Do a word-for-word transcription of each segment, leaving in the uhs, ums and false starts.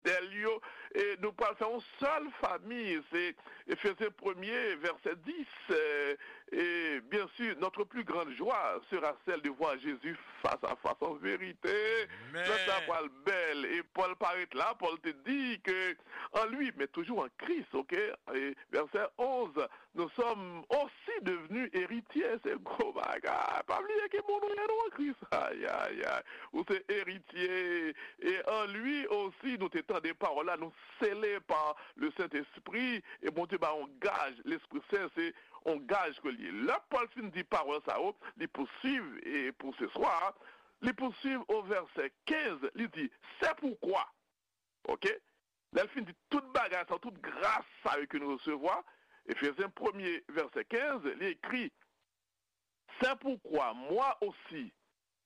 fidèl yo, e nou pral fè yon sèl fami. Se Efezyen premye, vèsè dis. E, e, byen si, notre plus grande joie sera celle de voir Jésus face à face en vérité. Sa pral bèl. E Pòl parèt la, Pòl te di ke en lui, mais toujours en Christ, ok? E vèsè onz, nous sommes aussi devenus héritiers. Se gwo bagay. Pa bliye ki moun ou ye, nou, an Kris. Ay, ay, ay. Ou se eritye. E en lui aussi, nou te tande pawòl la, nou sele pa le Sentespri, e Bondye ba yon gaj, Lespri Sen, se yon gaj ke l ye. Lè Pòl fin di pawòl sa yo, li pousuiv, e pou se swa, li pousuiv o vèsè kenz, li di, c'est pourquoi. Ok? Lè l fin di tout bagay sa, tout gras sa yo ke nou resevwa, Efezyen premye, vèsè kenz, li ekri, c'est pourquoi moi aussi,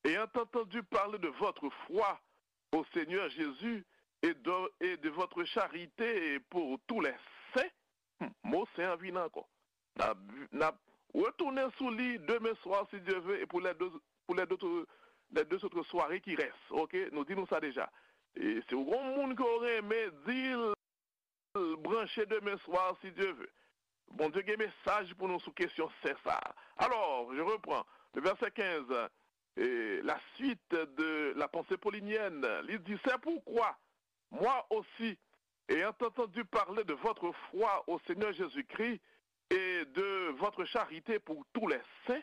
ayant entendu parler de votre foi au Seigneur Jésus et de, et de votre charité pour tous les saints, hmm, mo sen an vin ankò. N ap, n ap retounen sou li demen swa, si Dye ve, e pou les deux, pour les deux, les deux autres soirées qui restent. Ok? Nou di nou sa deja. E si w gon moun ke w renmen, di l branche demen swa, si Dye ve. Bondye gen mesaj pou nou sou kesyon sen sa a. Alors, je reprends le verset quinze, et la suite de la pensée paulinienne. Li di, c'est pourquoi, moi aussi, ayant entendu parler de votre foi au Seigneur Jésus-Christ et de votre charité pour tous les saints,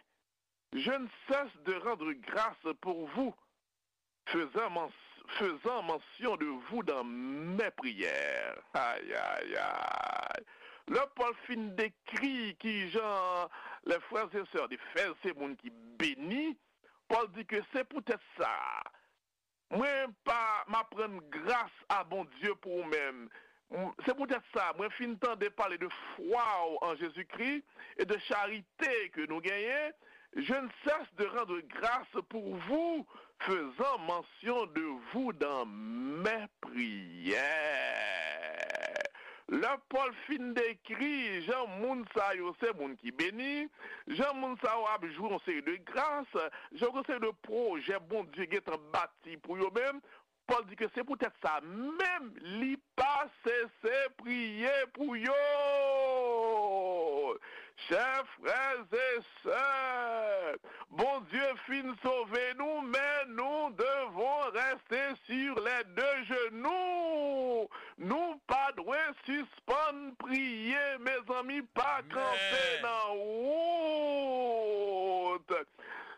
je ne cesse de rendre grâce pour vous, faisant, men- faisant mention de vous dans mes prières. Ay, ay, ay. Lè Pòl fin dekri kijan les frères et sœurs d'Éphèse se moun ki beni, Pòl di ke se poutèt sa, mwen pa, m ap rann gras a Bondye pou ou menm. M- Se poutèt sa, mwen fin tande pale de fwa w an Jezikri e de charite ke nou genyen. Je ne cesse de rendre grâce pour vous, faisant mention de vous dans mes prières. Lè Pòl fin dekri jan moun sa yo se moun ki beni, jan moun sa yo ap jwi yon seri de gras, jan yon seri de pwojè Bondye gentan bati pou yo menm, Pòl di ke se poutèt sa menm li pa sese priye pou yo. Chè frè e sè, Bondye fin sove nou, men nou devon reste sur les deux genoux. Nou pa dwe sispann priye, mezanmi, pa kanpe nan wout.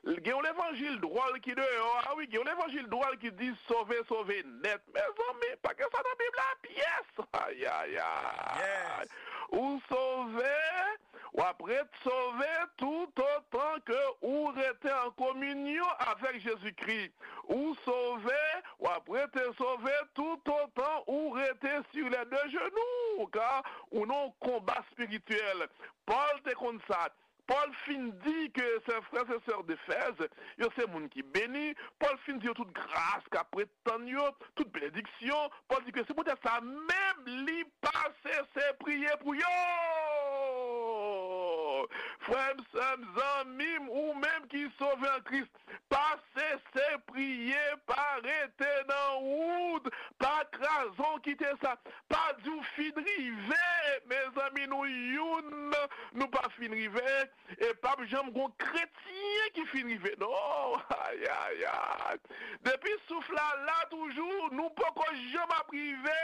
Gen yon levanjil dwòl ki deyò a, wi, gen yon levanjil dwòl ki di sove, sove nèt. Mezanmi, pa gen sa nan Bib la pyès. Ay, ay, ay. Ou sove, w ap ret sove toutotan ke ou rete an kominyon avèk Jezikri. Ou sove, w ap rete sove toutotan ou rete sur les deux genoux, ka ou nan yon konba espirityèl. Pòl te konn sa. Pòl fin di ke se frè e sè d'Efèz, yo se moun ki beni. Pòl fin di yo tout gras k ap ret tann yo, tout benediksyon. Pòl di ke se poutèt sa menm li pa sese priye pou yo. Frè m, sè m, zanmi m, ou menm ki sove an Kris, pa sese priye, pa rete nan wout, pa kraze w kite sa, pa di w fin rive. Mezanmi, nou youn, nou pa fin rive, e p ap janm gon kretyen ki fin rive, non. Ay, ay, ay. Depi souf la la toujou, nou poko janm ap rive,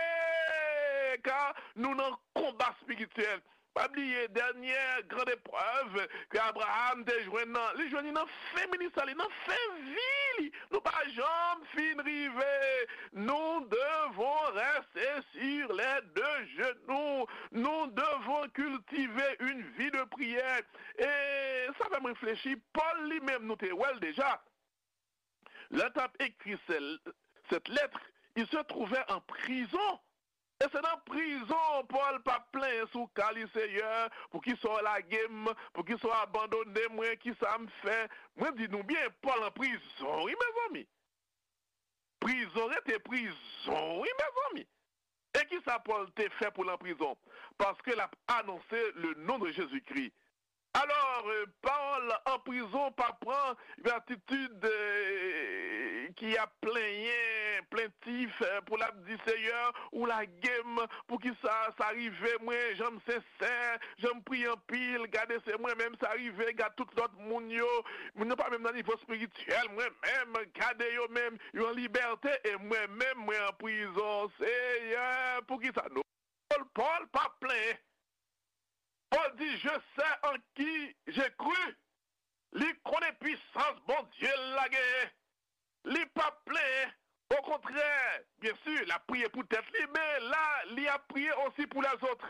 ka nou nan konba espirityèl. Pa bliye, dènyè gran eprèv ke Abraram te jwenn nan, li jwenn li nan fen ministè li, nan fen vi li. Nou pa janm fin rive. Nous devons rester sur les deux genoux. Nous devons cultiver une vie de prière. E sa fè m reflechi, Pòl li menm, nou te wè l deja. Lè l t ap ekri sè- cette lettre, il se trouvait en prison. E se nan prizon Pòl pa plenyen sou ka li, Seyè, poukisa w lage m, poukisa w abandone mwen, kisa m fè? Mwen di nou byen, Pòl an prizon, wi, mezanmi. Prizon rete prizon, wi, mezanmi. E kisa Pòl te fè pou l an prizon? Paske l ap anonse le nom de Jésus-Christ. Alò, euh, Pòl an prizon pa pran yon atitid, euh, ki ap plenyen, plentif, eh, pou l ap di, Seyè, ou lage m, poukisa sa rive mwen, jan m sensè, jan m priye anpil, gade se mwen menm sa rive, gade tout lòt moun yo, moun yo pa menm nan nivo espirityèl, mwen menm, gade yo menm, yo an libète, e mwen menm, mwen an prizon. Seyè, poukisa nou? Pòl, Pòl pa plenyen. Pòl di, Je sais en qui j'ai cru. Li konnen pwisans Bondye l la genyen. Li p ap plenyen. Okontrè, byen si, l ap priye pou tèt li, men la, li ap priye osi pou lèzòt.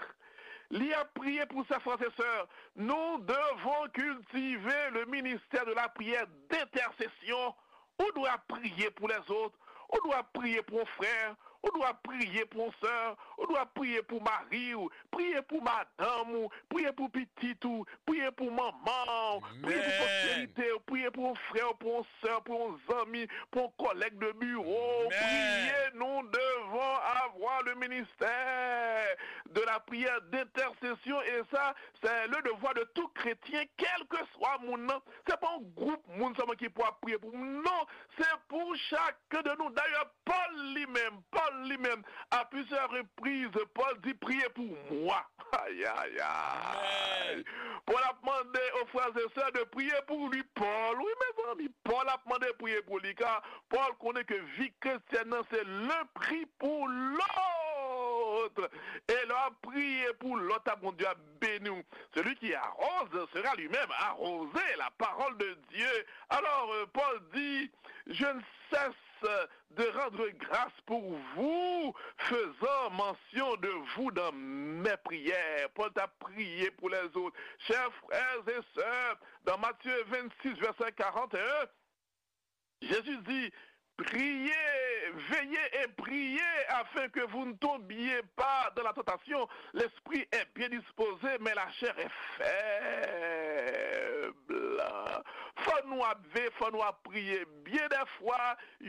Li ap priye pou sè, frè e sè. Nous devons cultiver le ministère de la prière d'intercession. Ou dwe ap priye pou lèzòt. Ou dwe ap priye pou yon frè. Ou dwe ap priye pou yon sè. Ou dwe ap priye pou mari w. Priye pou madanm ou. Priye pou pitit ou. Priye pou manman w. Priye pou posterite w. Priye pou yon frè w, pou yon sè w, pou yon zanmi, pou yon kòlèg de biwo. Priye, nous devons avoir le ministère de la prière d'intercession. Et ça, c'est le devoir de tout chrétien, quel que soit moun nan. Se pa yon gwoup moun sèlman ki pou ap priye pou moun. Non, se pou chak de nou. Dayè, Pòl li menm, Pòl li menm, à plusieurs reprises, Pòl di, Priez pour moi. Ay, ay, ay. Pòl ap mande aux frères et sœurs de prier pour lui. Pòl, wi, mezanmi, Pòl ap mande priye pou li, ka Pòl konnen ke vi kretyèn nan se l'un prie pour l'autre. E lè w ap priye pou lòt la, Bondye ap béni w. Celui qui arrose sera lui-même arrosé, la parole de Dieu. Alors, euh, Paul dit, Je ne cesse de rendre grâce pour vous, faisant mention de vous dans mes prières. Pòl t ap priye pou lèzòt. Chers frères et sœurs, dans Matthieu vingt-six, verset quarante et un, Jésus dit, Priez, veillez et priez afin que vous ne tombiez pas dans la tentation. L'esprit est bien disposé, mais la chair est faible. Fò nou ap veye, fò nou ap priye. Byen dèfwa,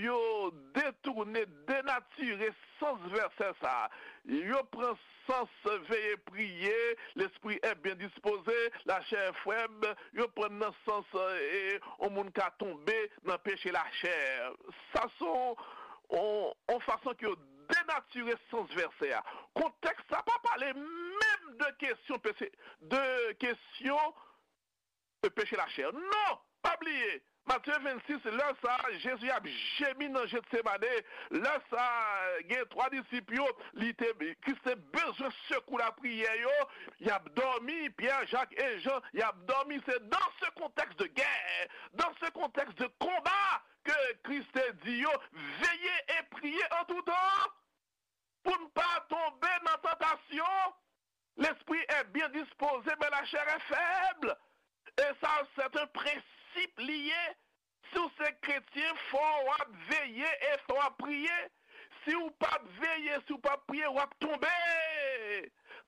yo detounen, denatire sans vèsè sa a. Yo pran sans veye priye, l'esprit est bien disposé, la chair est faible, yo pran nan sans, e, yon moun ka tonbe nan peche lachè. Sa se yon, yon, yon fason ke yo denatire sans vèsè a. Kontèks sa pa pale menm de kesyon peche, de kesyon peche lachè. Non! Pa bliye, Matye vennsis, lè sa a, Jezi ap jemi nan Jetsemane. Lè sa a, gen twa disip yo, li te, Kris te bezwen sekou lapriyè yo. Y ap dòmi, Pyè, Jak e Jan, y ap dòmi. Se dans ce contexte de guerre, dans ce contexte de combat, ke Kris te di yo, Veillez et priez en tout temps, pou n pa tonbe nan tantasyon. L'esprit est bien disposé, mais la chair est faible. E sa, se yon prensip li ye. Si w se kretyen, fò w ap veye e fò w ap priye. Si w p ap veye, si w p ap priye, w ap tonbe.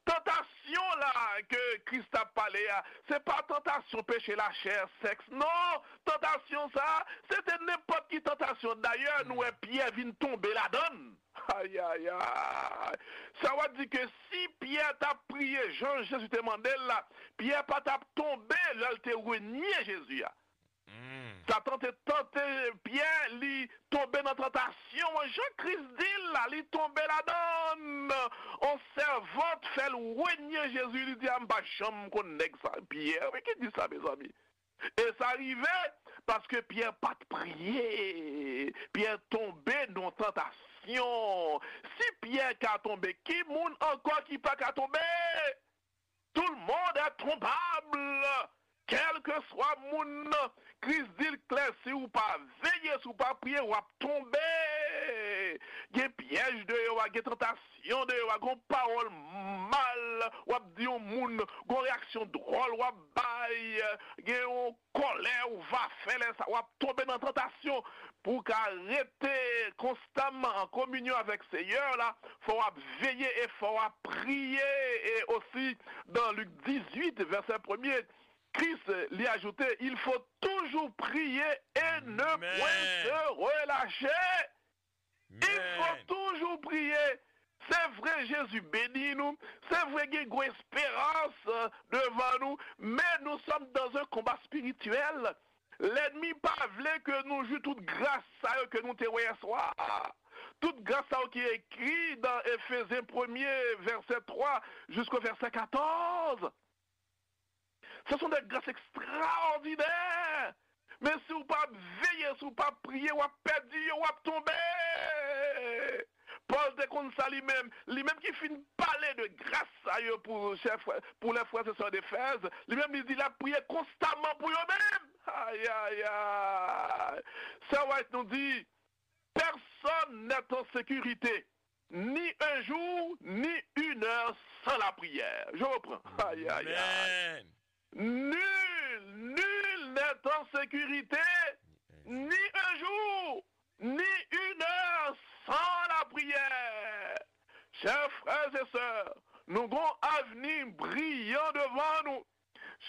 Tantasyon la ke Kris t ap pale a, se pa tantasyon peche lachè, sèks, non. Tantasyon sa, se te nenpòt ki tantasyon. Dayè, nou wè Pyè vin tonbe ladan l. Ayayay! Sa w ap di ke si Pyè t ap priye jan Jezi te mande l la, Pyè pa t ap tonbe lè l te renye Jezi a. Satan te tante Pyè, li tonbe nan tantasyon an, jan Kris di l la, li tonbe ladan l. On sèvant fè l renye Jezi, li di, a, m pa janm konn nèg sa. Pyè, wi, ki di sa, mezanmi? E sa rive paske Pyè pa t priye. Pyè tonbe nan tantasyon. Si Pyè ka tonbe, ki moun ankò ki pa ka tonbe? Tout le monde est tombable. Kèlkeswa moun nan, Kris di l klè, si w pa veye, si w pa priye, w ap tonbe. Gen pyèj deyò a, gen tantasyon deyò a, gen pawòl mal w ap di yon moun, gen reyaksyon dwòl w ap bay, gen yon kòlè ou va fè lè sa, w ap tonbe nan tantasyon. Pou w ka rete konstamman an kominyon avèk Seyè la, fò w ap veye e fò w ap priye. E osi, dan Lik dizuit, vèsè premye, Kris, li ajoute, Il faut toujours prier et ne point se relâcher. Il faut toujours prier. Se vre, Jezi beni nou. Se vre, gen gwo esperans, euh, devan nou. Men nous sommes dans un combat spirituel. Lènmi pa vle ke nou jwi tout gras sa yo ke nou te wè yè swa. Tout gras sa yo ki ekri nan Efezyen premye, vèsè twa jisko vèsè katòz. Ce sont des grâces extraordinaires. Men si w pa veye, si w pa priye, w ap pèdi yo, w ap tonbe. Pòl te konn sa li menm. Li menm ki fin pale de gras sa yo pou chè frè, pou les frères et sœurs d'Éphèse. Li menm li di l ap priye konstaman pou yo menm. Ay, ay, ay. Sè White nou di, personne n'est en sécurité, ni un jour, ni une heure sans la prière. Je reprends. Ay, ay, ay. Amen. Nul, nul n'est en sécurité, ni un jour, ni une heure sans la prière. Chers frères et sœurs, nou gon avni briyan devan nou.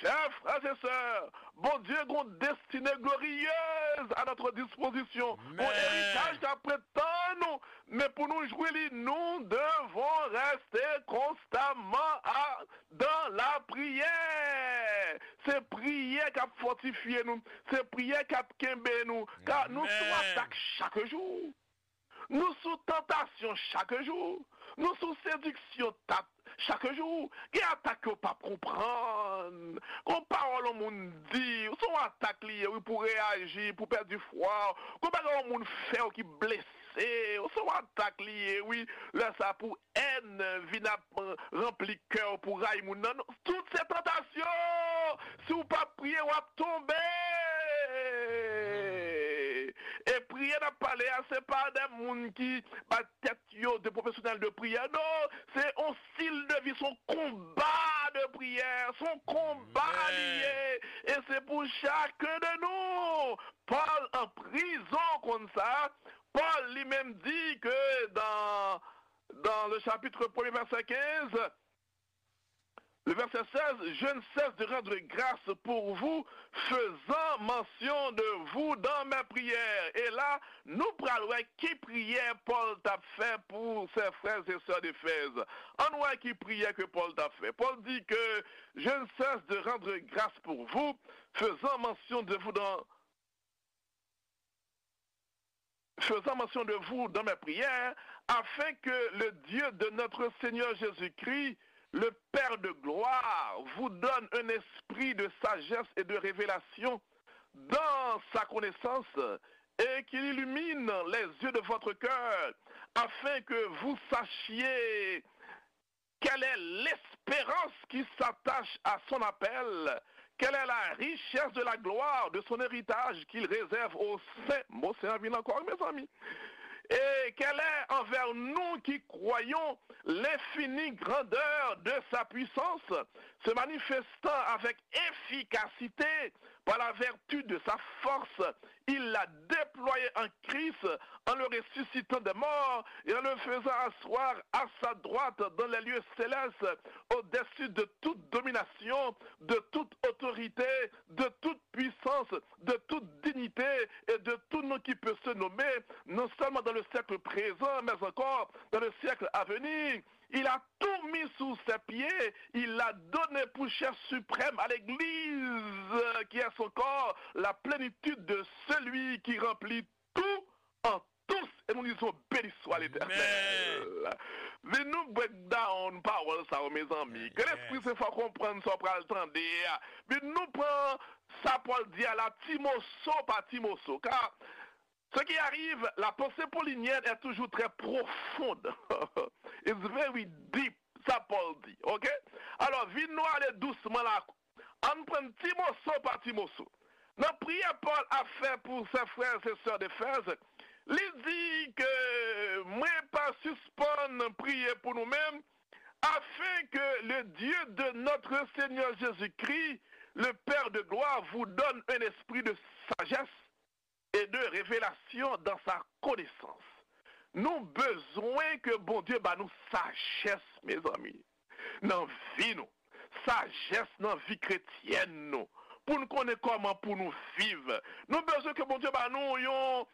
Chers frères et sœurs, Bondye gon destine glorieuse à notre disposition. Gon eritaj k ap ret tann nou, men pou nou jwi li, nous devons rester constamment à, dans la prière. Se priyè k ap fòtifye nou, se priyè k ap kenbe nou, ka nou sou atak chak jou. Nou sou tantasyon chak jou. Nou sou sediksyon tat chak jou. Gen atak ke w p ap konprann. Gon pawòl yon moun di, se yon atak li ye, wi, pou reyaji, pou pèdi fwa w. Gon bagay yon moun fè w ki blese w, se yon atak li ye, wi. Lè sa pou èn vin ap ranpli kè w, pou rayi moun nan. Non, tout se tantasyon. Si w p ap priye, w ap tonbe. E priyè n ap pale a, se pa de moun ki bay tèt yo de pwofesyonèl de priyè. Non, se yon stil de vi, se yon konba de priyè, se yon konba li ye. E se pou chakun de nou. Pòl an prizon konn sa. Pòl li menm di ke dans, dans le chapitre premier, verset quinze, le verset seize, je ne cesse de rendre grâce pour vous, faisant mention de vous dans mes prières. E la, nou pral wè ki priyè Pòl t ap fè pou ses frères et sœurs d'Éphèse. Ann wè ki priyè ke Pòl t ap fè. Pòl di ke, je ne cesse de rendre grâce pour vous, faisant mention de vous dans faisant mention de vous dans mes prières, afin que le Dieu de notre Seigneur Jésus-Christ, le Père de gloire, vous donne un esprit de sagesse et de révélation dans sa connaissance, et qu'il illumine les yeux de votre cœur, afin que vous sachiez quelle est l'espérance qui s'attache à son appel? Quelle est la richesse de la gloire de son héritage qu'il réserve aux saints? Bon, se anpil ankò, mezanmi. Et quelle est envers nous qui croyons l'infinie grandeur de sa puissance, se manifestant avec efficacité par la vertu de sa force, il l'a déployé en Christ en le ressuscitant des morts et en le faisant asseoir à sa droite dans les lieux célestes, au-dessus de toute domination, de toute autorité, de toute puissance, de toute dignité et de tout nom qui peut se nommer, non seulement dans le siècle présent, mais encore dans le siècle à venir. Il a tout mis sous ses pieds, il l'a donné pour chef suprême à l'Église, qui est son corps, la plénitude de celui qui remplit tout en tous. Et nous disons, béni soit l'Éternel. Vin nou break down pawòl sa yo, mezanmi. Ke Lespri Sen fè w konprann sa w pral tande a. Vin nou pran sa Pòl di a la, ti moso pa ti moso. Ka Ce qui arrive, la pensée paulinienne est toujours très profonde. It's very deep, sa Pòl di, ok? Alò, vin nou ale dousman la. Ann pran ti moso pa ti moso. Nan priyè Pòl ap fè pou ses frères et sœurs d'Éphèse, li di ke mwen pa sispann priye pou nou menm, afin que le Dieu de notre Seigneur Jésus-Christ, le Père de gloire, vous donne un esprit de sagesse et de révélation dans sa connaissance. Nou bezwen ke Bondye ba nou sajès, mezanmi, nan vi nou, sajès nan vi kretyèn nou, pou n konnen kòman pou nou viv. Nou bezwen ke Bondye ba nou yon,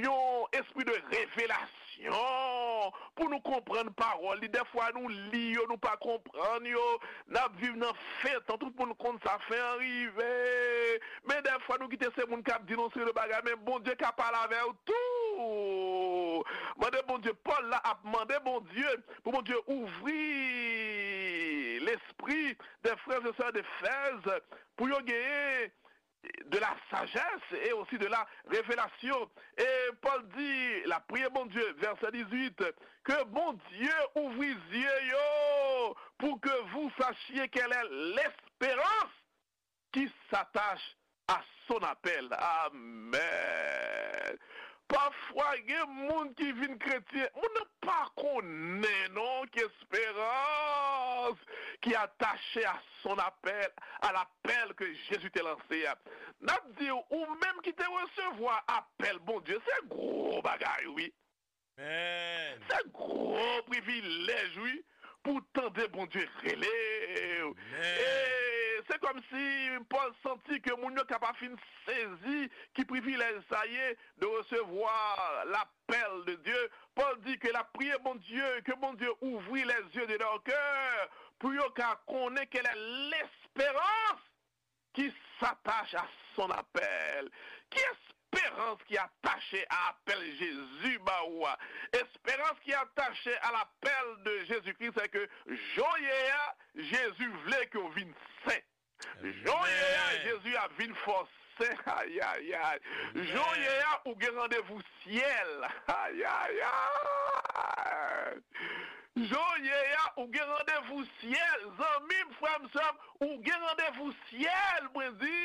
yon espri de revelasyon pou nou konprann pawòl li. Dèfwa nou li yo, nou pa konprann yo. N ap viv nan fentan, tout moun konn sa, fen an rive. Men dèfwa nou kite se moun k ap di nou seri de bagay, men Bondye ka pale avè w tou. Mande Bondye, Pòl la ap mande Bondye pou Bondye ouvri lespri des frères et sœurs d'Éphèse pou yo genyen de la sagesse et aussi de la révélation. Et Paul dit, la prière, Bondye, verset dix-huit, que Bondye ouvri zye yo pour que vous sachiez quelle est l'espérance qui s'attache à son appel. Amen. Pafwa, gen moun ki vin kretyen, moun nan pa konnen non ki esperans ki atache a son apèl, à l'appel que Jésus te lancé a. N ap di w, ou menm ki te resevwa apèl Bondye, se gwo bagay, wi. Amen. Se gwo privilèj, wi, pou tande Bondye rele w. Amen. E se kòmsi Pòl santi ke moun yo ka pa fin sezi ki privilèj sa ye de resevwa lapèl de Dye. Pòl di ke l ap priye Bondye, ke Bondye ouvri les yeux de leur cœur pou yo ka konnen quelle est l'espérance qui s'attache à son appel. Ki esperans ki atache a apèl Jezi ba ou a? Esperans ki atache a lapèl de Jezikri, se ke jan w ye a, Jezi vle ke w vin sen. Jan w ye a, Jezi ap vin fè w sen. Ayayay. Jan w ye a, ou gen randevou syèl. Ayayay. Jan w ye a, ou gen randevou syèl. Zanmi m, frè m, sè m, ou gen randevou syèl, mwen di.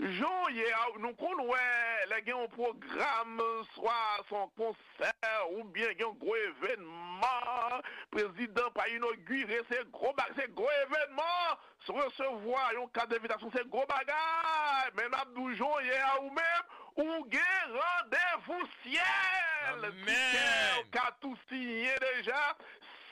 Jan w ye a, nou konn wè, lè gen yon pwogram, swa se yon konsè, oubyen gen yon gwo evènman, prezidan pa inogire, se gwo ba-, se gwo evènman, se resevwa yon kat envitasyon, se gwo bagay. Men m ap di w jan w ye a, ou menm, ou gen randevou syèl. Ki kè w ka tou siyen deja,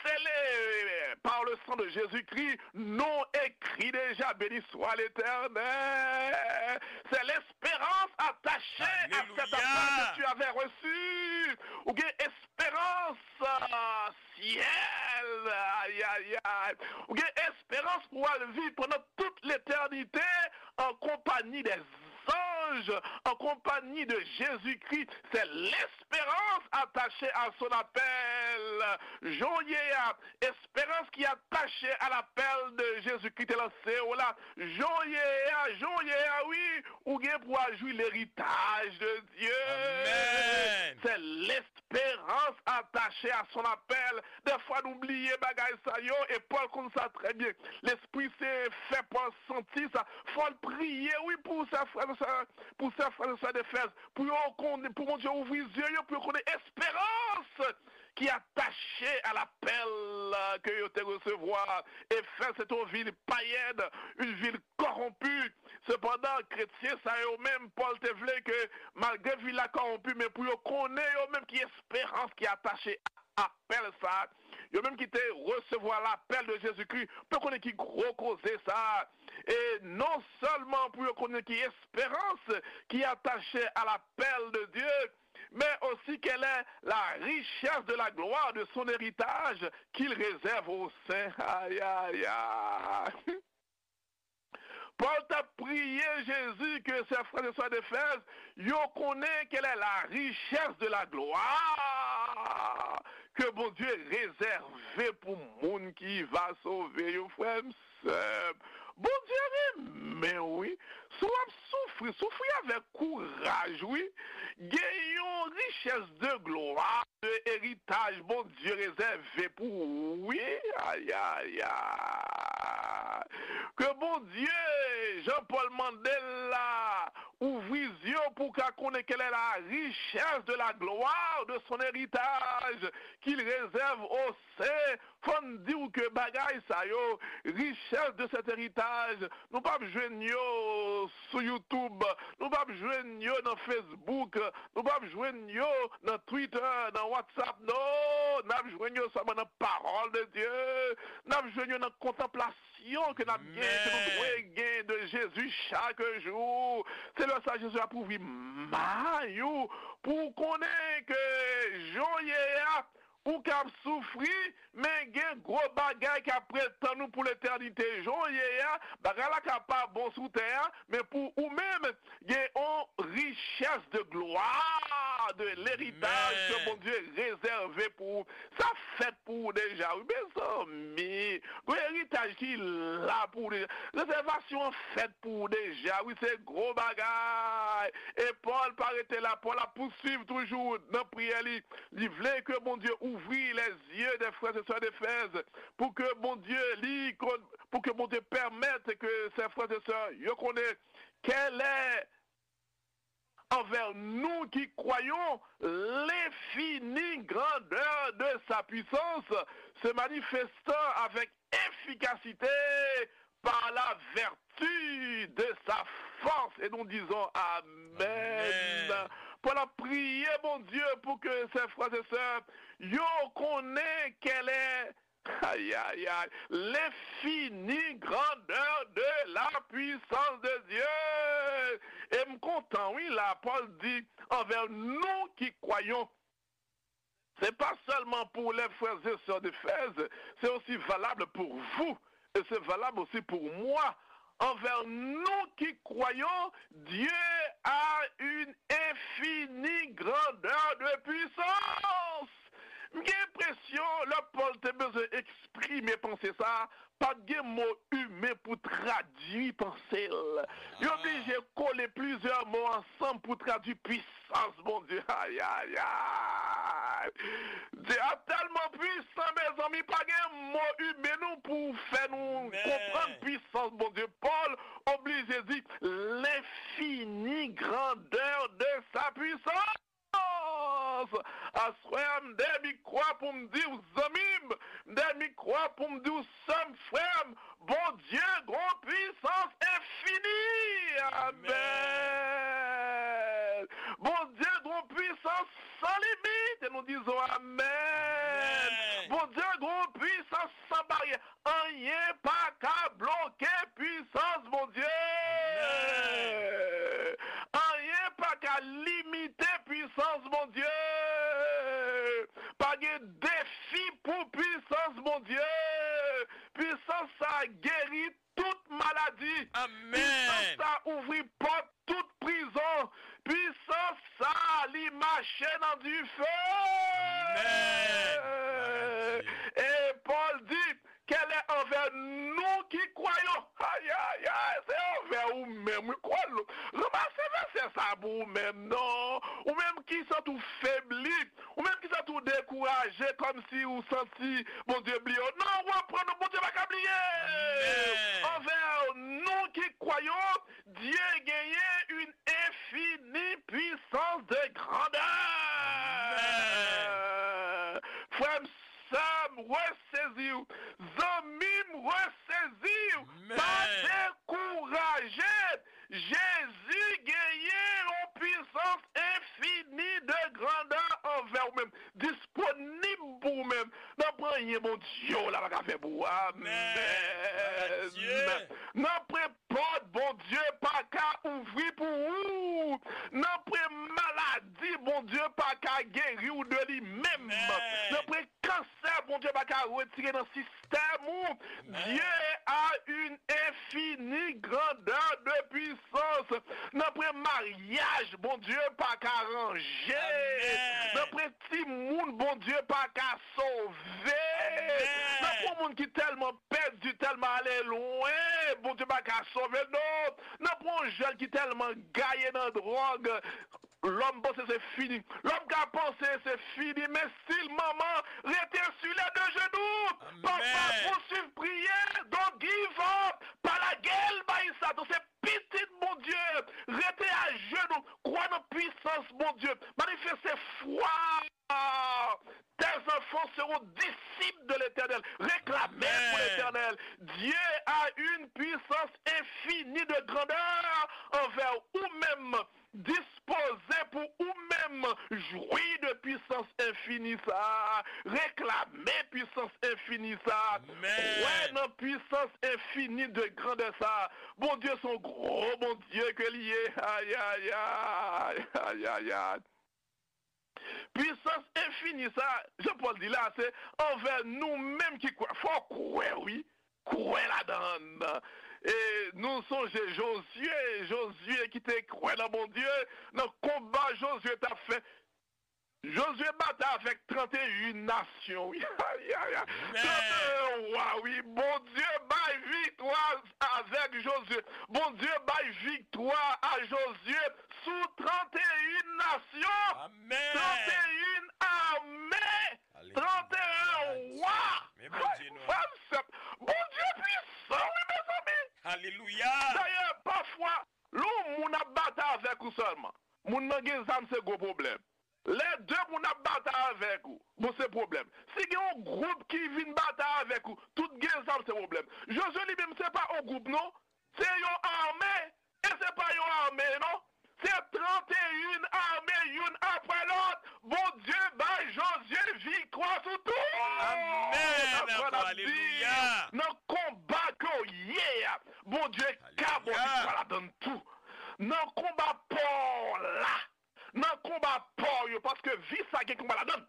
scellé par le sang de Jésus-Christ, nom écrit déjà, béni soit l'Éternel. C'est l'espérance attachée à cet appel que tu avais reçu. Ou gen esperans, ah, syèl. Ayayay. Ou gen esperans pou w al viv pandan tout letènite an konpanyi dè zanj, an konpanyi de Jezikri. C'est l'espérance attachée à son appel. Jan w ye a, esperans ki atache a lapèl de Jezikri te lanse w la. Jan w ye a, jan w ye a, wi, ou gen pou w al jwi leritaj de Dye. Amen. C'est l'espérance attachée à son appel. Dèfwa nou bliye bagay sa yo, e Pòl konn sa trè byen. Lespri Sen fè Pòl santi sa. Fò l priye, wi, pou sè frè, sè, pou sè frè, sè Efèz, pou yo konnen, pou Bondye ouvri zye yo, pou yo konnen esperans ki atache a lapèl ke yo te resevwa. Efèz se te yon vil payèn, yon vil kòwonpi. Sepandan, kretyen sa yo menm, Pòl te vle ke, malgre vil la kòwonpi, men pou yo konnen yo menm ki esperans ki atache a apèl sa a, yo menm ki te resevwa lapèl de Jezikri, pou yo konnen ki gwo koze sa a. E non sèlman pou yo konnen ki esperans ki atache a lapèl de Dye, men osi quelle est la richesse de la gloire de son héritage qu'il réserve aux saints. Ayayay. Pòl t ap priye Jezi ke sè frè e sè Efèz yo konnen quelle est la richesse de la gloire que Bondye réservé pou moun ki va sove yo, frè m, sè m. Bondye renmen w, wi. Si w ap soufri, soufri avèk kouraj, wi. Gen yon richès de glwa, de eritaj Bondye rezève pou ou, wi. Ayayay. Ke Bondye, jan Pòl mande l la, ouvri zye w pou w ka konnen quelle est la richesse de la gloire de son héritage qu'il réserve aux saints. Fò n di w ke bagay sa yo, richès de cet héritage, nou p ap jwenn yo sou YouTube, nou p ap jwenn yo nan Facebook, nou p ap jwenn yo nan Twitter, nan WhatsApp, non, n ap jwenn yo sèlman nan pawòl de Dye, n ap jwenn yo nan kontanplasyon revelasyon ke n ap gen, ke nou dwe gen de Jezi chak jou. Se lè sa Jezi ap ouvri may ou pou w konnen ke jan w ye a, ou k ap soufri, men gen gwo bagay k ap ret tann ou pou letènite. Jan w ye a, bagay la ka pa bon sou tè a, men pou ou menm, gen yon richès de glwa, de leritaj ke Bondye rezève pou ou. Sa fèt pou ou deja, wi, mezanmi. Gon eritaj ki la pou ou deja. Rezèvasyon an fèt pou ou deja, wi, se gwo bagay. E Pòl pa rete la, Pòl ap pouswiv toujou nan priyè li. Li vle ke Bondye ouvri les yeux des frères et sœurs d'Éphèse, pou ke Bondye li kon-, pou ke Bondye pèmèt ke ses frères et sœurs yo konnen kèlè envè nou ki kwayons, l'infinie grandeur de sa puissance se manifestant avec efficacité par la vertu de sa force. Et nous disons Amen. Amen. Pòl ap priye Bondye pou ke ses frères et sœurs yo konnen kèlè, ay, ay, ay, l'infinie grandeur de la puissance de Dieu. E m kontan, wi, la, Pòl di, envè nou ki kwayons. C'est pas seulement pour les frères et sœurs d'Éphèse, c'est aussi valable pour vous et c'est valable aussi pour moi. Envè nou ki kwayons, Dieu a une infinie grandeur de puissance. M gen enpresyon, lè Pòl te bezwen eksprime panse sa a, pa t gen mo imen pou tradui panse l. Yo oblije kole plizyè mo ansanm pou tradui pwisans Bondye. Ay, ay, ay! Dye a tèlman pwisan, mezanmi, pa gen mo imen nou pou fè nou konprann pwisans Bondye. Pòl oblije di, l'infinie grandeur de sa puissance. Aswè a, m dèyè mikwo a pou m di w, zanmi m, m dèyè mikwo a pou m di w, sè m, frè m, Bondye gon pwisans enfini. Amèn. Bondye gon pwisans san limit. E nou dizon amèn. Amèn. Bondye gon pwisans san baryè. Anyen pa ka bloke pwisans Bondye. Amèn. Anyen pa ka limite pwisans Bondye. Pa gen defi pou pwisans Bondye. Pwisans sa geri tout maladi. Amèn. Pwisans sa ouvri pòt tout prizon. Pwisans sa, li mache nan dife. Amèn. E Pòl di, kèlè anvè nou ki kwayons. Ay, ay, ay, se anvè ou menm, wi, kwè l. Ranmase vèsè sa pou ou menm, non. Ou menm ki santi w febli, ou menm ki santi w dekouraje, kòmsi ou santi Bondye bliye w. Non, reprann ou, Bondye pa ka bliye. Amèn. Anvè nou ki kwayons, Dye genyen une infinie puissance de grandeur. Amèn. Frè m, sè m, resezi w. Zanmi m, resezi w. Amèn. Pa dekouraje. Jezi genyen yon pwisans enfini de grandè anvè w menm. Disponib pou ou menm. Nanpwen anyen Bondye w la pa ka fè pou ou. Amèn. Amèn. Glwa a Dye. Nanpwen pòt Bondye pa ka ouvri pou ou. Nanpwen maladi Bondye pa ka geri w de li menm. Amèn. Nanpwen kansè Bondye pa ka retire nan sistèm ou. Amèn. Dieu a une infinie grandeur de puissance. Nanpwen maryaj Bondye pa ka ranje. Amèn. Nanpwen timoun Bondye pa ka sove. Amèn. Nanpwen moun ki tèlman pèdi, tèlman ale lwen, Bondye pa ka sove l non. Nanpwen jèn ki tèlman gaye nan dwòg, lòm panse se fini. Lòm ka panse se fini, men still manman rete sur les deux genoux. Amèn. Papa, pouswiv priye, don't give up. Pa lage l bay Satan, se pitit Bondye. Rete ajenou, kwè nan pwisans Bondye. Manifeste fwa tes enfants seront disciples de l'Éternel. Reklame pou Letènèl. Dieu a une puissance infinie de grandeur envè ou menm. Dispoze pou ou menm jwi de pwisans enfini sa a. Reklame pwisans enfini sa a. Kwè nan pwisans enfini de grandè sa a. Bondye se yon gwo Bondye ke li ye. Ayayay, ayayay. Pwisans enfini sa, Jan Pòl di la, se anvè nou menm ki kwè. Fò w kwè, wi. Kwè ladan l. E nou sonje Jozye, Jozye ki te kwè nan Bondye, nan konba Jozye t ap fè. Jozye batay avèk trannteyen nasyon, wi. Ayayay. Trannteyen wa, wi. Bondye bay viktwa avèk Jozye. Bondye bay viktwa a Jozye sou trannteyen nasyon. Trannteyen ame. Trannteyen wa. Frè m, sè m, Bondye pwisan, wi, mezanmi. Dayè, pafwa, lè yon moun ap batay avèk ou sèlman, moun nan gen zam, se gwo pwoblèm. Lè de moun ap batay avèk ou, bon, se pwoblèm. Si gen yon gwoup ki vin batay avèk ou, tout gen zam, se pwoblèm. Jozye li menm, se pa yon gwoup, non. Se yon ame. E se pa yon ame, non. Se trannteyen ame, youn apre lòt. Bondye bay Jozye viktwa sou tout. Amèn. Apre l ap di, nan konba ke w ye a, Bondye ka ba w viktwa ladan l tou. Nan konba pa w la, nan konba pa w yo, paske vi sa gen konba ladan l.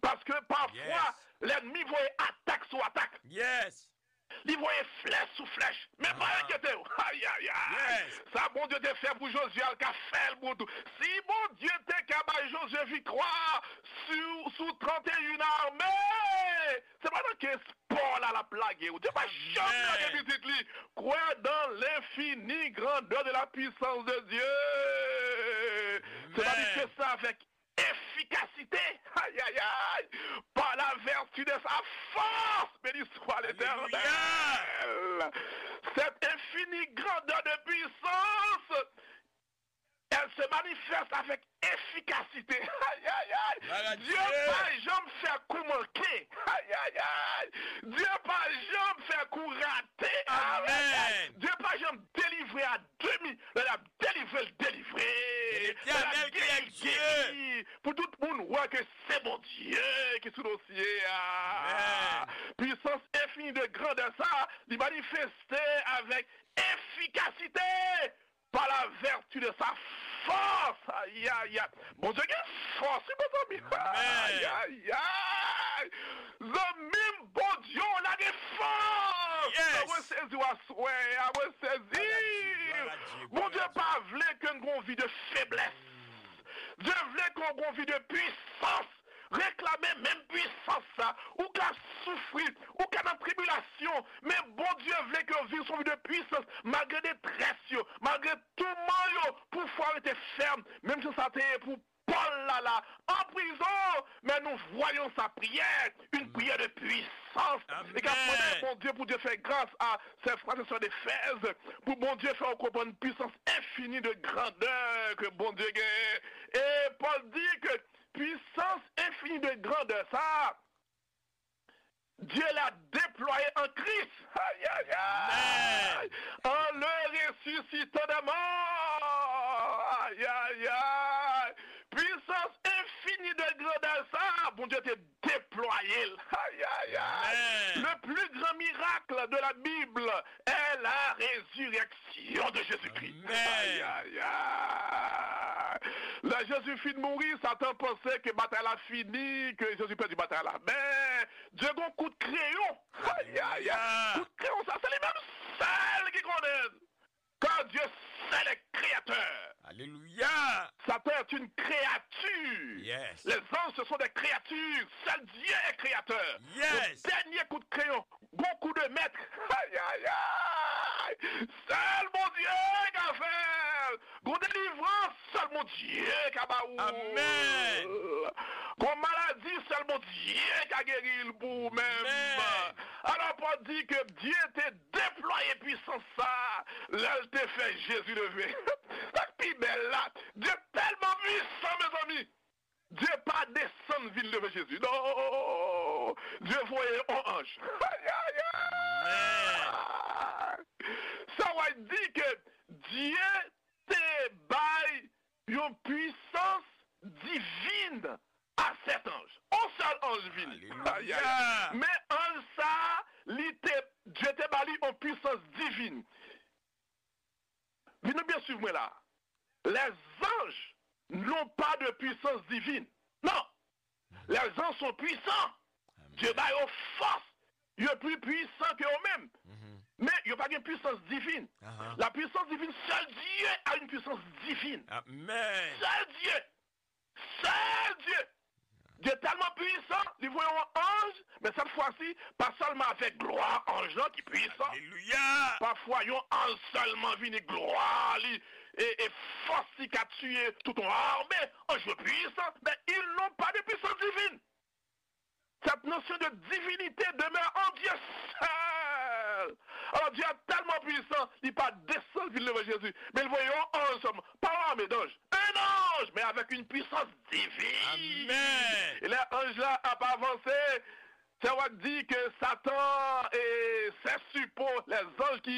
Paske pafwa, lènmi voye atak sou atak. Li voye flèch sou flèch. Men pa enkyete w. Ayayay. Sa Bondye te fè pou Jozye a, l ka fè l pou ou tou. Si Bondye te ka bay Jozye viktwa sou, sou trannteyen ame, se pa nan ke espò la l ap lage ou. Dye pa janm lage pitit li. Kwè dans l'infinie grandeur de la puissance de Dieu. Se pa li ke sa avèk efikasite, ayayay, par la vertu de sa force, béni soit l'Éternel. Cette infinie grandeur de puissance, elle se manifeste avec efficacité. Ayayay. Dye pa janm fè kou manke. Ayayay. Dye pa janm fè kou rate. Ayayay. Dye pa janm delivre a demi. Lè l ap delivre, l delivre. Lè l ap geri, geri. Pou tout moun wè ke se Bondye ki sou dosye a. Pwisans enfini de grandè sa, li manifeste avèk efikasite pa la vèti de sa fòs. Ayayay. Bondye gen fòs, wi, mezanmi. Ayayay. Zanmi m, Bondye w la gen fòs. Mwen sezi w aswè a, mwen sezi. Bondye pa vle ke n gon vi de feblès. Dye vle ke w gon vi de pwisans. Reklame menm pwisans sa. Ou ka soufri, ou ka nan tribilasyon, men Bondye vle ke w viv sou vi de pwisans, malgre detrès yo, malgre touman yo, pou fwa w rete fèm, menm jan sa te ye pou Pòl la, la, an prizon, men nou voyons sa prière, une prière de puissance. E k ap mande Bondye pou Dye fè gras a sè frè e sè Efèz, pou Bondye fè w konprann pwisans enfini de grandè ke Bondye genyen. E Pòl di ke pwisans enfini de grandè sa, Dieu l'a déployé en Christ. Aïe, aïe, aïe. En le ressuscitant des morts. Aïe, aïe, aïe. Pwisans enfini de grandè sa, Bondye te deplwaye l. Aïe, aïe, aïe. Le plus grand miracle de la Bible est la résurrection de Jésus-Christ. Aïe, aïe, aïe. Lè Jezi fin mouri, Satan panse ke batay la fini, ke Jezi pèdi batay la. Men, Dye gon kout kreyon. Aïe, aïe, aïe. Kout kreyon sa, se li menm sèl ki konnen l. Car Dieu seul est créateur. Alléluia. Satan est une créature. Les anges, ce sont des créatures. Seul Dieu est créateur. Le dernier coup de crayon, bon coup de maître. Aïe, aïe, aïe. Sèl Bondye ka fè l. Gon delivrans, sèl Bondye ka ba ou. Amèn. Gon maladi, sèl Bondye ka geri l pou ou menm. Alò, Pòl di ke Dye te deplwaye pwisans sa lè l te fè Jezi leve. Sa k pi bèl la, Dye tèlman pwisan, mezanmi. Dye pa desann vin leve Jezi. Non! Dye voye yon anj. Aïe, aïe, aïe! Sa w a di ke Dye te bay yon pwisans divin a sèt anj. Alelouya. Men anj sa a, li te, Dye te ba li yon pwisans divin. Vin nou byen swiv mwen la. Les anges n'ont pas de puissance divine. Non. Les anges sont puissants. Dieu ba yo fòs. Yo pli pwisan ke yo menm. Men yo pa gen pwisans divin. La puissance divine, seul Dieu a une puissance divine. Amen. Seul Dieu. Seul Dieu. Dieu tèlman pwisan, li voye yon anj, men sèt fwa si, pa sèlman avèk glwa anj lan ki pwisan. Alelouya. Pafwa, yon anj sèlman vini, glwa li, e, e fòs li ka tiye tout yon ame, anj yo pwisan, men ils n'ont pas de puissance divine. Cette notion de divinité demeure en Dieu seul. Alors, Dieu est tellement puissant, li pa desann vin devan Jezi, men li voye yon anj sèlman, pa yon ame d'anj, un ange, mais avec une puissance divine. Amen. E lè anj la ap avanse, se wè di ke Satan e ses suppôts, les anges ki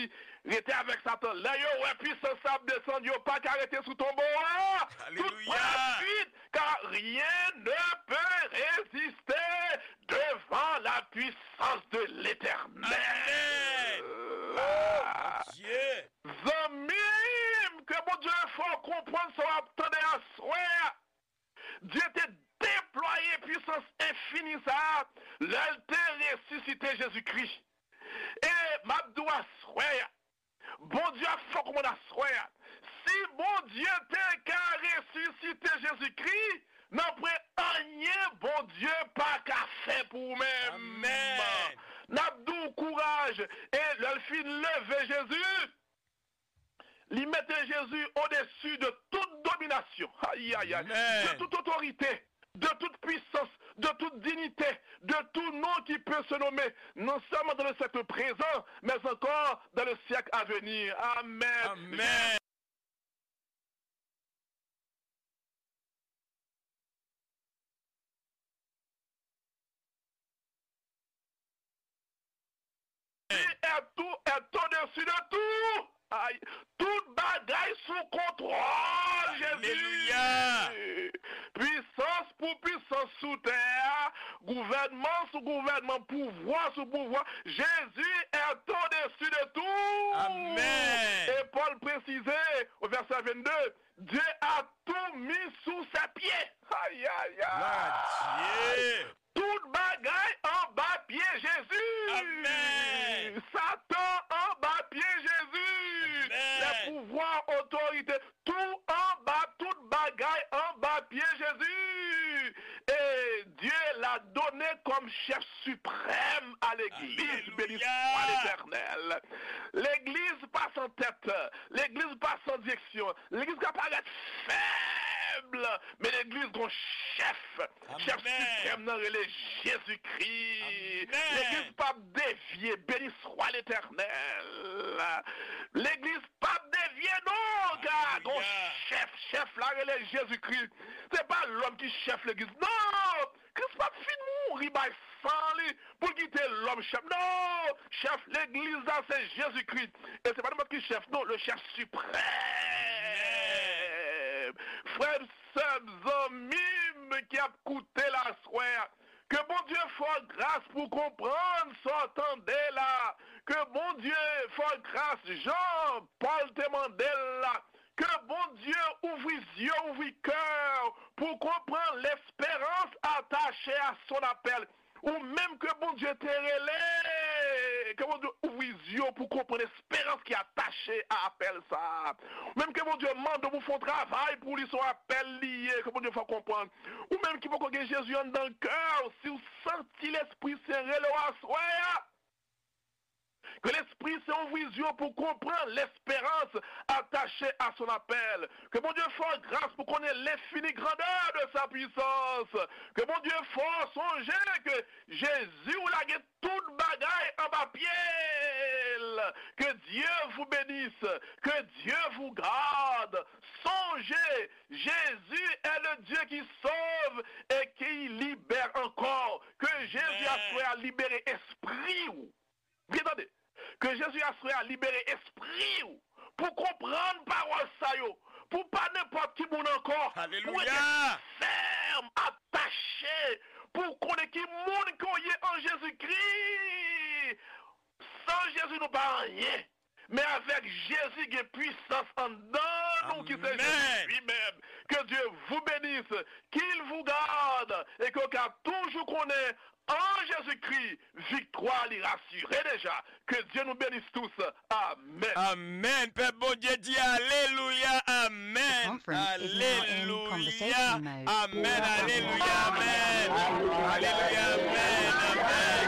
rete avèk Satan, lè yo wè pwisans sa ap desann, yo pa ka rete sou tonbo a. Tout pran fuit, car rien ne peut résister devant la puissance de l'Éternel. Amen. Oh, mon Dieu. Zanmi m, ke Bondye fè w konprann sa w ap tande aswè a. Dye te deplwaye pwisans enfini sa a lè l te resisite Jezikri. E m ap di w aswè a, Bondye ap fè w konprann aswè a, si Bondye te ka resisite Jezikri, nanpwen anyen Bondye pa ka fè pou ou menm. Amèn. N ap di w kouraj, e lè l fin leve Jezi, li mete Jezi odesi de tout dominasyon, ayayay, de tout otorite, de tout pwisans, de tout dinite, de tout nom qui peut se nommer, non seulement dans le siècle présent, mais encore dans le siècle à venir. Amen. Amèn. Li est tout, est au-dessus de tout. Ay, tout bagay sou kontwòl Jezi. Alelouya. Pwisans pou pwisans sou tè a, gouvènman sou gouvènman, pouvwa sou pouvwa. Jezi est au-dessus de tout. Amèn. E Pòl presize, o vèsè vennde, Dieu a tout mis sous ses pieds. Ayayay. Glwa a Dye. Tout bagay anba pye Jezi. Amèn. Satan anba pye Jezi. Amèn. Les pouvoirs, autorités, tout anba, tout bagay anba pye Jezi. Et Dieu l'a donné comme chef suprême à l'église. Alelouya. Béni soit l'Éternel. Legliz pa san tèt. Legliz pa san direksyon. Legliz ka parèt fèb, men legliz gon chèf. Chèf siprèm nan rele Jezikri. Amèn. Legliz p ap devye. Béni soit l'Éternel. Legliz p ap devye non, ka gon chèf. Chèf la rele Jezikri. Se pa lòm ki chèf legliz. Non! Kris p ap fin mouri bay san li pou l kite lòm chèf. Non! Chèf legliz la se Jezikri. E se pa nenpòt ki chèf, non, le chèf siprèm. Frè m, sè m, zanmi m ki ap koute la aswè a, ke Bondye fè w gras pou w konprann sa w tande la. Ke Bondye fè w gras jan Pòl te mande l la. Ke Bondye ouvri zye w, ouvri kè w pou w konprann l'espérance attachée à son appel. Ou menm ke Bondye te rele, ke Bondye ouvri zye w pou w konprann esperans ki atache a apèl sa a. Ou menm ke Bondye mande w pou w fè yon travay pou li, se yon apèl li ye, ke Bondye fè w konprann. Ou menm ki poko gen Jezi anndan kè w, si w santi Lespri Sen rele w aswè a, ke Lespri Sen ouvri zye w pou w konprann l'espérance attachée à son appel. Ke Bondye fè w gras pou w konnen l'infinie grandeur de sa puissance. Ke Bondye fè w sonje ke Jezi w la gen tout bagay anba pye l. Que Dieu vous bénisse. Que Dieu vous garde. Sonje, Jésus est le Dieu qui sauve et qui libère encore. Ke Jezi aswè a libere espri w. Byen tande. Ke Jezi aswè a libere espri w pou konprann pawòl sa yo, pou pa nenpòt ki moun ankò, pou rete fèm, atache, pou konnen ki moun ke w ye pa anyen. Men avèk Jezi gen pwisans anndan nou ki se Jezi li menm. Que Dieu vous bénisse, qu'il vous garde et que w ka toujou konnen an Jezikri, viktwa li rasire deja. Que Dieu nous bénisse tous. Amèn. Amèn. Pèp Bondye di alelouya, amèn. Alelouya, amèn, alelouya, amèn. Alelouya, amèn, amèn.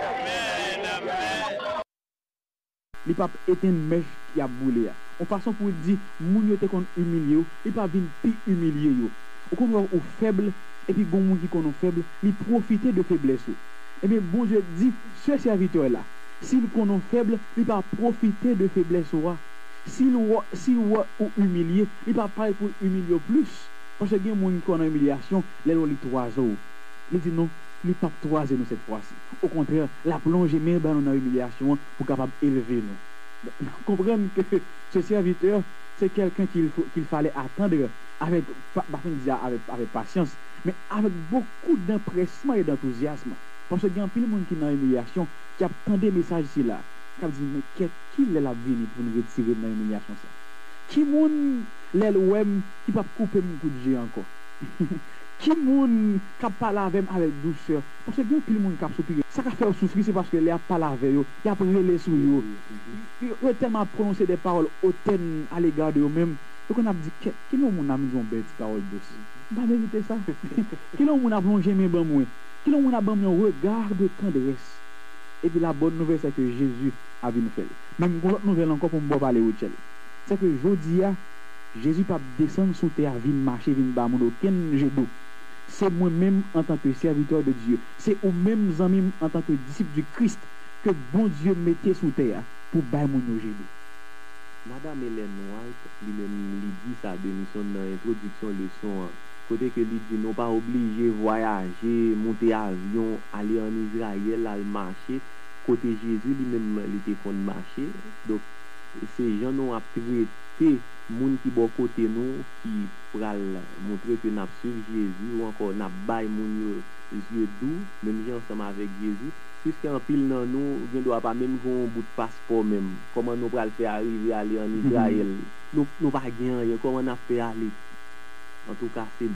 Amèn, amèn. Li p ap etenn mèch y ap boule a. Yon fason pou l di, moun yo te konn imilye w, li p ap vin pi imilye yo. Ou konn wè ou fèb, epi gon moun ki konn ou fèb, li pwofite de feblès ou. Ebyen, Bondye di, se sèvitè la, si l konn ou fèb, li pa pwofite de feblès ou a. Si l wè, si l wè ou imilye, li pa pare pou l imilye w plis. Paske gen moun ki konn nan imilyasyon, lè l wè w, li twaze w. Li di, non, li p ap twaze nou sèt fwa si. Okontrè, l ap lonje men l ba nou nan imilyasyon an pou kapab elve nou. Donk, konprann ke ce serviteur, c'est quelqu'un qu'il faut, qu'il fallait attendre avec, pa, pa fin di a, avec, avec patience, men avec beaucoup d'empressement et d'enthousiasme. Paske gen anpil moun ki nan imilyasyon, ki ap tande mesaj sila, k ap di, men kèt, kilè l ap vini pou n retire m nan imilyasyon sa? Ki moun, lè l wè m, ki p ap koupe m kout je ankò? Ki moun k ap pale avè m avèk dousè? Paske gen anpil moun k ap soupire. Sa k ap fè yo soufri, se paske lè y ap pale avè yo, y ap rele sou yo. Yo, yo tèlman ap pwononse de pawòl otèn alega de yo menm, yo konn ap di, kèt, kilè yon moun ap di yon bèl ti pawòl dous? M pa merite sa. Kilè yon moun ap lonje men ban mwen? Kilè yon moun ap ban m yon regard de tendresse? Epi la bonne nouvelle, c'est que Jésus ap vin fè l. Men m gon lòt nouvèl ankò pou m ba w pale, Rutshelle. C'est que jodi a, Jezi p ap desann sou tè a vin mache, vin ba moun okenn je dou. Se mwen menm, antanke sèvitè de Dye, se ou menm, zanmi m, antanke disip di Kris, ke Bondye mete sou tè a pou bay moun yo je dou. Madanm Ellen White, li menm, li di sa de misyon nan entwodiksyon leson an, kote ke li di nou pa oblije vwayaje, moute avyon, ale ann Izrayèl, al mache, kote Jezi li menm li te konn mache. Donk, se jan nou ap trete moun ki bò kote nou ki pral montre ke n ap swiv Jezi, ou ankò n ap bay moun yo je dou, menm jan ansanm avèk Jezi, piske anpil nan nou gendwa pa menm gen yon bout paspò menm. Kòman nou pral fè arive ale ann Izrayèl? Nou, nou pa gen anyen, kòman n ap fè ale? Antouka, se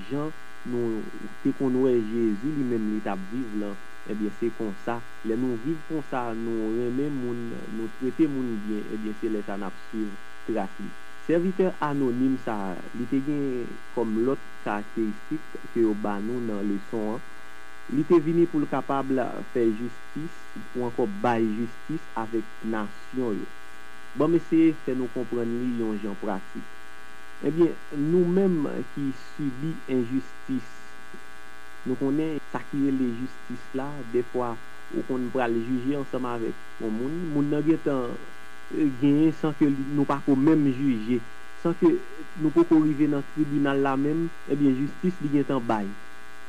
jan nou te konn wè Jezi li menm li t ap viv lan, ebyen, se konsa, lè nou viv konsa, nou renmen moun, nou trete moun byen, ebyen, se lè sa n ap swiv tras li. Sèvitè anonim sa a, li te gen kòm lòt karakteristik ke yo ba nou nan leson an. Li te vini pou l kapab fè jistis, ou ankò bay jistis avèk nasyon yo. Ban m eseye fè nou konprann li yon jan pratik. Ebyen, nou menm ki sibi enjistis, nou konnen sa ki rele jistis la, dèfwa ou konn pral jije ansanm avèk yon moun, moun nan gentan, eh, genyen san ke li, nou pa ko menm jije, san ke nou poko rive nan tribinal la menm, ebyen, jistis li gentan bay.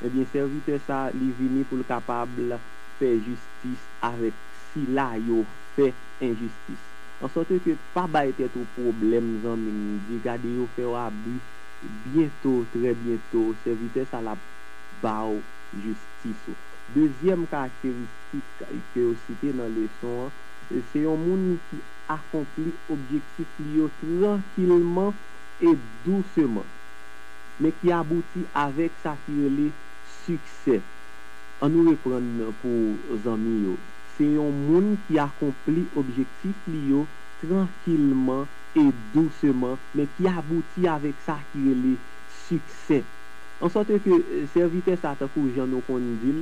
Ebyen, sèvitè sa a, li vini pou l kapab fè jistis avèk sila yo fè enjistis. Ansòt ke pa bay tèt ou pwoblèm, zanmi m, di gade yo fè w abi, byento, trè byento, sèvitè sa l ap ba w jistis ou. Dezyèm karakteristik ke yo site nan leson an, se yon moun ki akonpli objektif li yo trankilman e douseman, men ki abouti avèk sa ki rele siksè. An nou reprann pou zanmi yo. Se yon moun ki akonpli objektif li yo trankilman e douseman, men ki abouti avèk sa ki rele siksè. Ansòt ke, eh, sèvitè sa, tankou jan nou konn di l,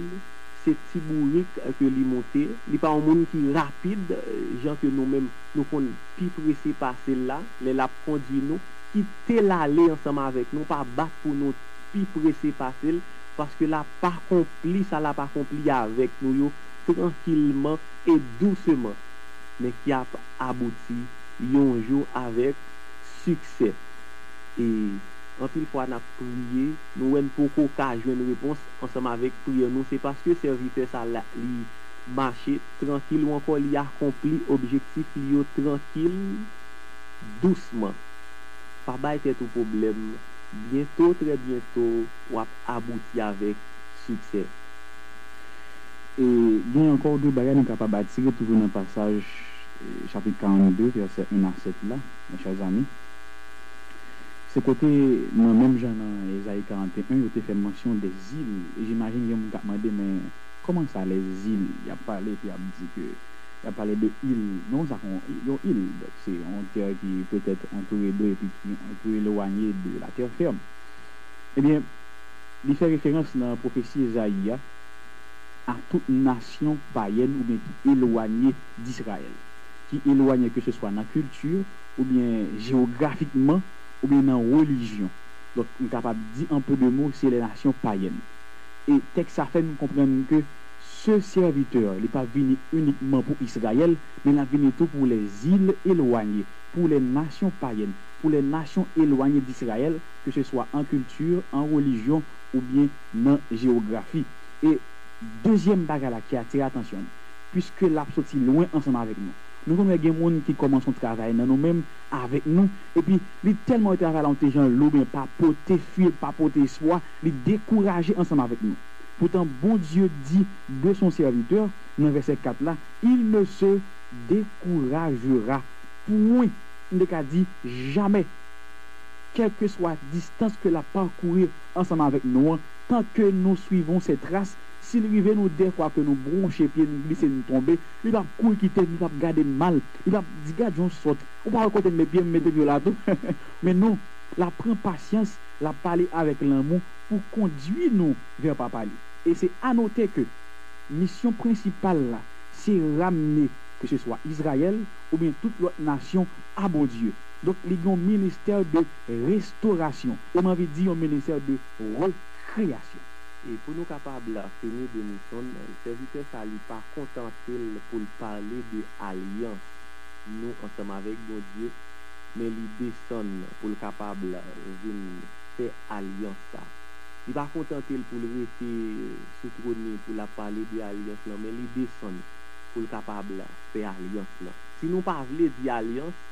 se ti bourik ke li moute. Li pa yon moun ki rapid, eh, jan ke nou menm nou konn pi prese pase l la, lè l ap kondui nou. Kite l ale ansanm avèk nou, pa bat pou nou pi prese pase l, paske l ap akonpli sa l ap akonpli avèk nou yo trankilman e douseman, men ki ap abouti yon jou avèk siksè. E anpil fwa n ap priye, nou wè n poko ka jwenn repons ansanm avèk priyè nou, se paske sèvitè sa la, li mache trankil ou ankò li akonpli objektif li yo trankil, dousman. Pa bay tèt ou pwoblèm, byento, trè byento, w ap abouti avèk siksè. E gen ankò de bagay nou kapab atire toujou nan pasaj chapit karannde, vèsè en a sèt la, mes chers amis, se kote, nan menm jan nan Ezayi karannteyen, yo te fè mansyon de zil. E jimajin gen moun k ap mande, men kòman sa, les îles? Y ap pale, epi y ap di ke, y ap pale de il. Non, sa, yon, yon il. Donk, se yon tè ki petèt antoure dlo epi ki yon pè elwanye de la terre ferme. Ebyen, li fè referans nan pwofesi Ezayi a, a tout nasyon payèn oubyen ki elwanye d'Izrayèl, ki elwanye ke se swa nan kilti, oubyen jewografikman, oubyen nan relijyon. Donk, m kapab di an pe de mo, se les nations païennes. E tèks sa fè nou konprann ke ce serviteur, li pa vini inikman pou Izrayèl, men l ap vini tou pou les îles éloignées, pour les nations païennes, pour les nations éloignées d'Israël, que ce soit en culture, en religion oubyen nan jewografi. E dezyèm bagay la ki atire atansyon nou, piske l ap soti lwen ansanm avèk nou. Nou konn wè gen moun ki kòmanse yon travay nan nou menm, avèk nou, epi li tèlman wè travay la yon ti jan lou, men pa pote fil, pa pote espwa, li dekouraje ansanm avèk nou. Poutan, Bondye di de son serviteur, nan vèsè kat la, il ne se découragera point. M te ka di, jamè. Kèlkeswa distans ke l ap pakouri ansanm avèk nou an, tant que nous suivons ses traces, si l rive nou dèfwa ke nou bwonche pye, nou glise, nou tonbe, li p ap kouri kite n, li p ap gade n mal, li p ap di, "Gad jan w sòt, ou pa wè kote m met pye m, m mete pye w la tou." Men non, l ap pran pasyans, l ap pale avèk lanmou pou kondui nou vè Papa li. E se a note ke misyon prensipal la, se ramne, ke se swa Izrayèl oubyen tout lòt nasyon, a Bondye. Donk, li gen yon ministè de restorasyon, e m anvi di yon ministè de rekreyasyon. E pou nou kapab fini, Denison, sèvitè sa, li pa kontante l pou l pale de alyans nou ansanm avèk Bondye, men li desann pou l kapab vin fè alyans sa. Li pa kontante l pou l rete sou twòn li pou l ap pale de alyans lan, men li desann pou l kapab fè alyans lan. Si nou pa vle di alyans,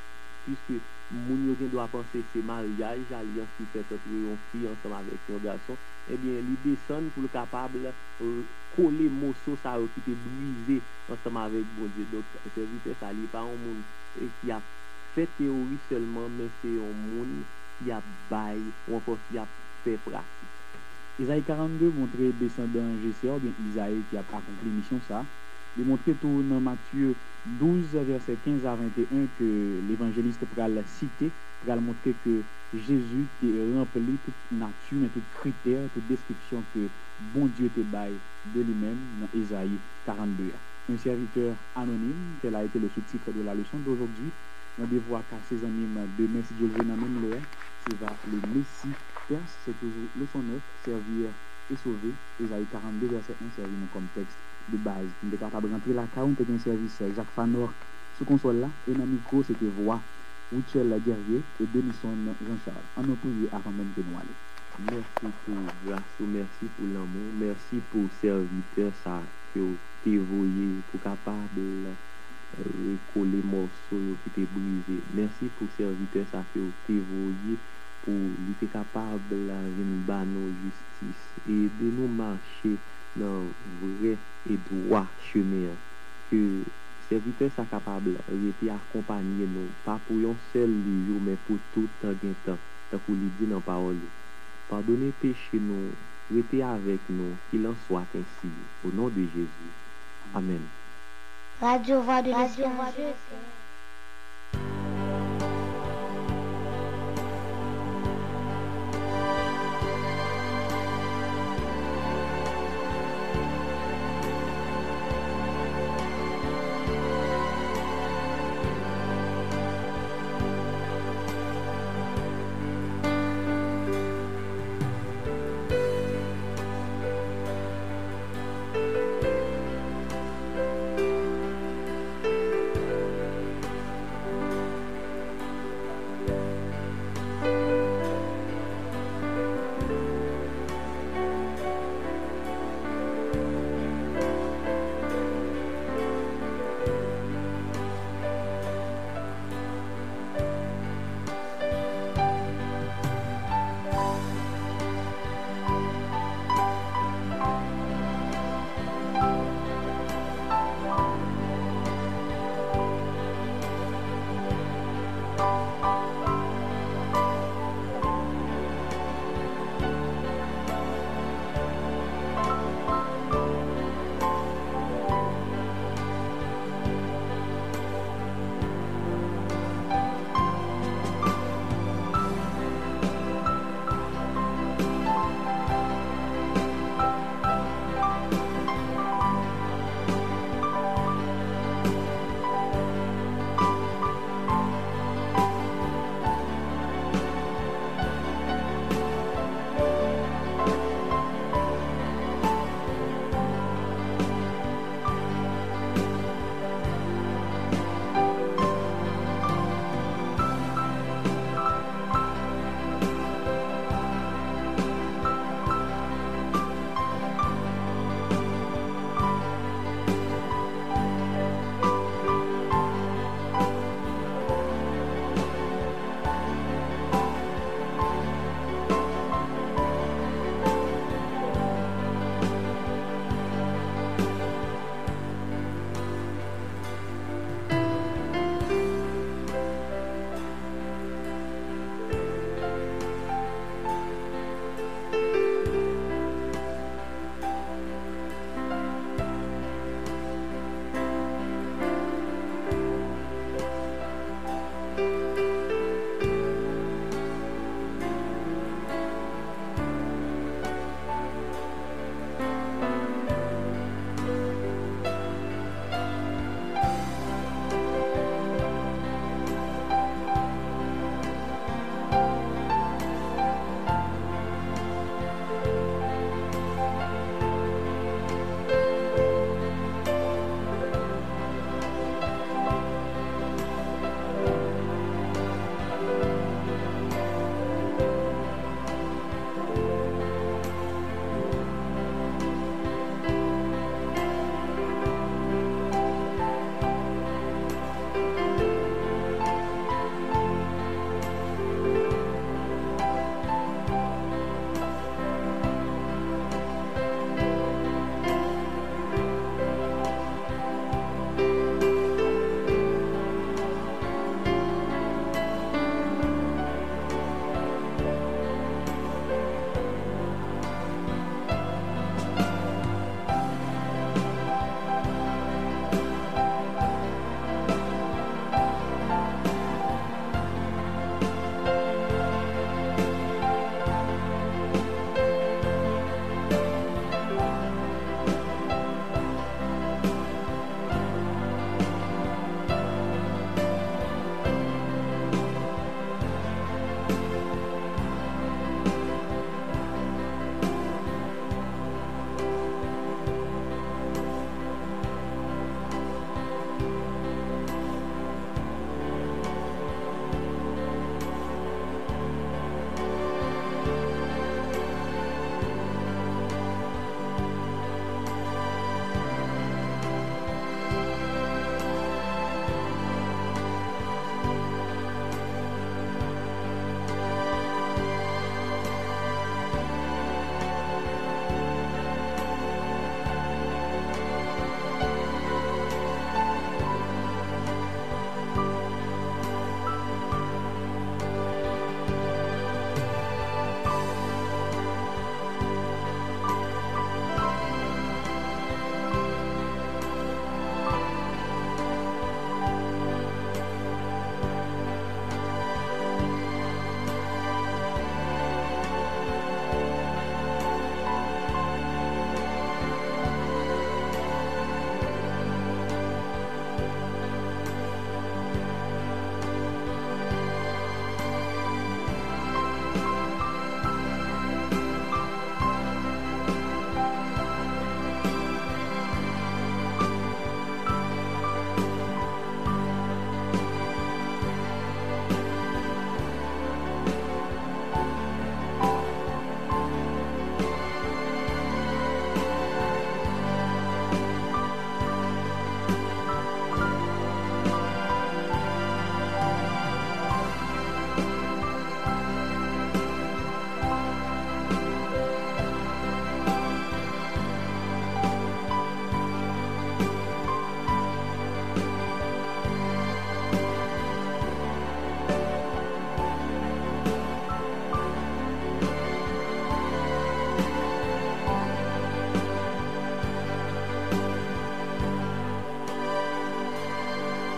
piske moun yo gen dwa panse se maryaj, alyans ki fèt ant yon fi ansanm avèk yon gason, ebyen, li desann pou l kapab, eh, kole moso sa yo ki te brize ansanm avèk Bondye. Donk, sèvitè sa, li pa yon moun, eh, ki ap fè teyori sèlman, men se yon moun ki ap bay, ou ankò ki ap fè pratik. Ezayi karannde montre desandan Jesè oubyen Izayi ki ap akonpli misyon sa. Li montre tou nan Matye douz, vèsè kenz a venteyen, ke levanjelis pral site, pral montre ke Jezi te ranpli tout nati, men tout kritè, tout deskripsyon ke Bondye te bay de li menm nan Ezayi karannde a. Un serviteur anonyme, tel a été le sous-titre de la leçon d'aujourd'hui. Randevou ak se zanmi m demen, si Dye l vle, nan menm lè a. Se va le Messie perse, se toujou leson nèf, servir et sauver, Ezayi karannde, vèsè en, sèvi nou kòm tèks de baz. Nou te kapab rantre lakay ou, nou te gen sèvis Jacques Fanor sou konsòl la, e nan mikwo, se te vwa Rutshelle Guerrier e Denison Jean Charles. Ann nou priye avan menm ke nou ale. Mèsi pou gras ou, mèsi pou lanmou, mèsi pou sèvitè sa ke w te voye pou kapab rekole mòso yo ki te brize. Mèsi pou sèvitè sa ke w te voye pou li te kapab vin ba nou jistis e ede nou mache nan vrè e dwa chemen an. Ke sèvitè sa kapab rete akonpanye nou, pa pou yon sèl jou, men pou tout tan gen tan, tankou li di nan pawòl li. Padone peche nou, rete avèk nou, qu'il en soit ainsi, au nom de Jésus. Amèn. Radio Voix de l'Espérance.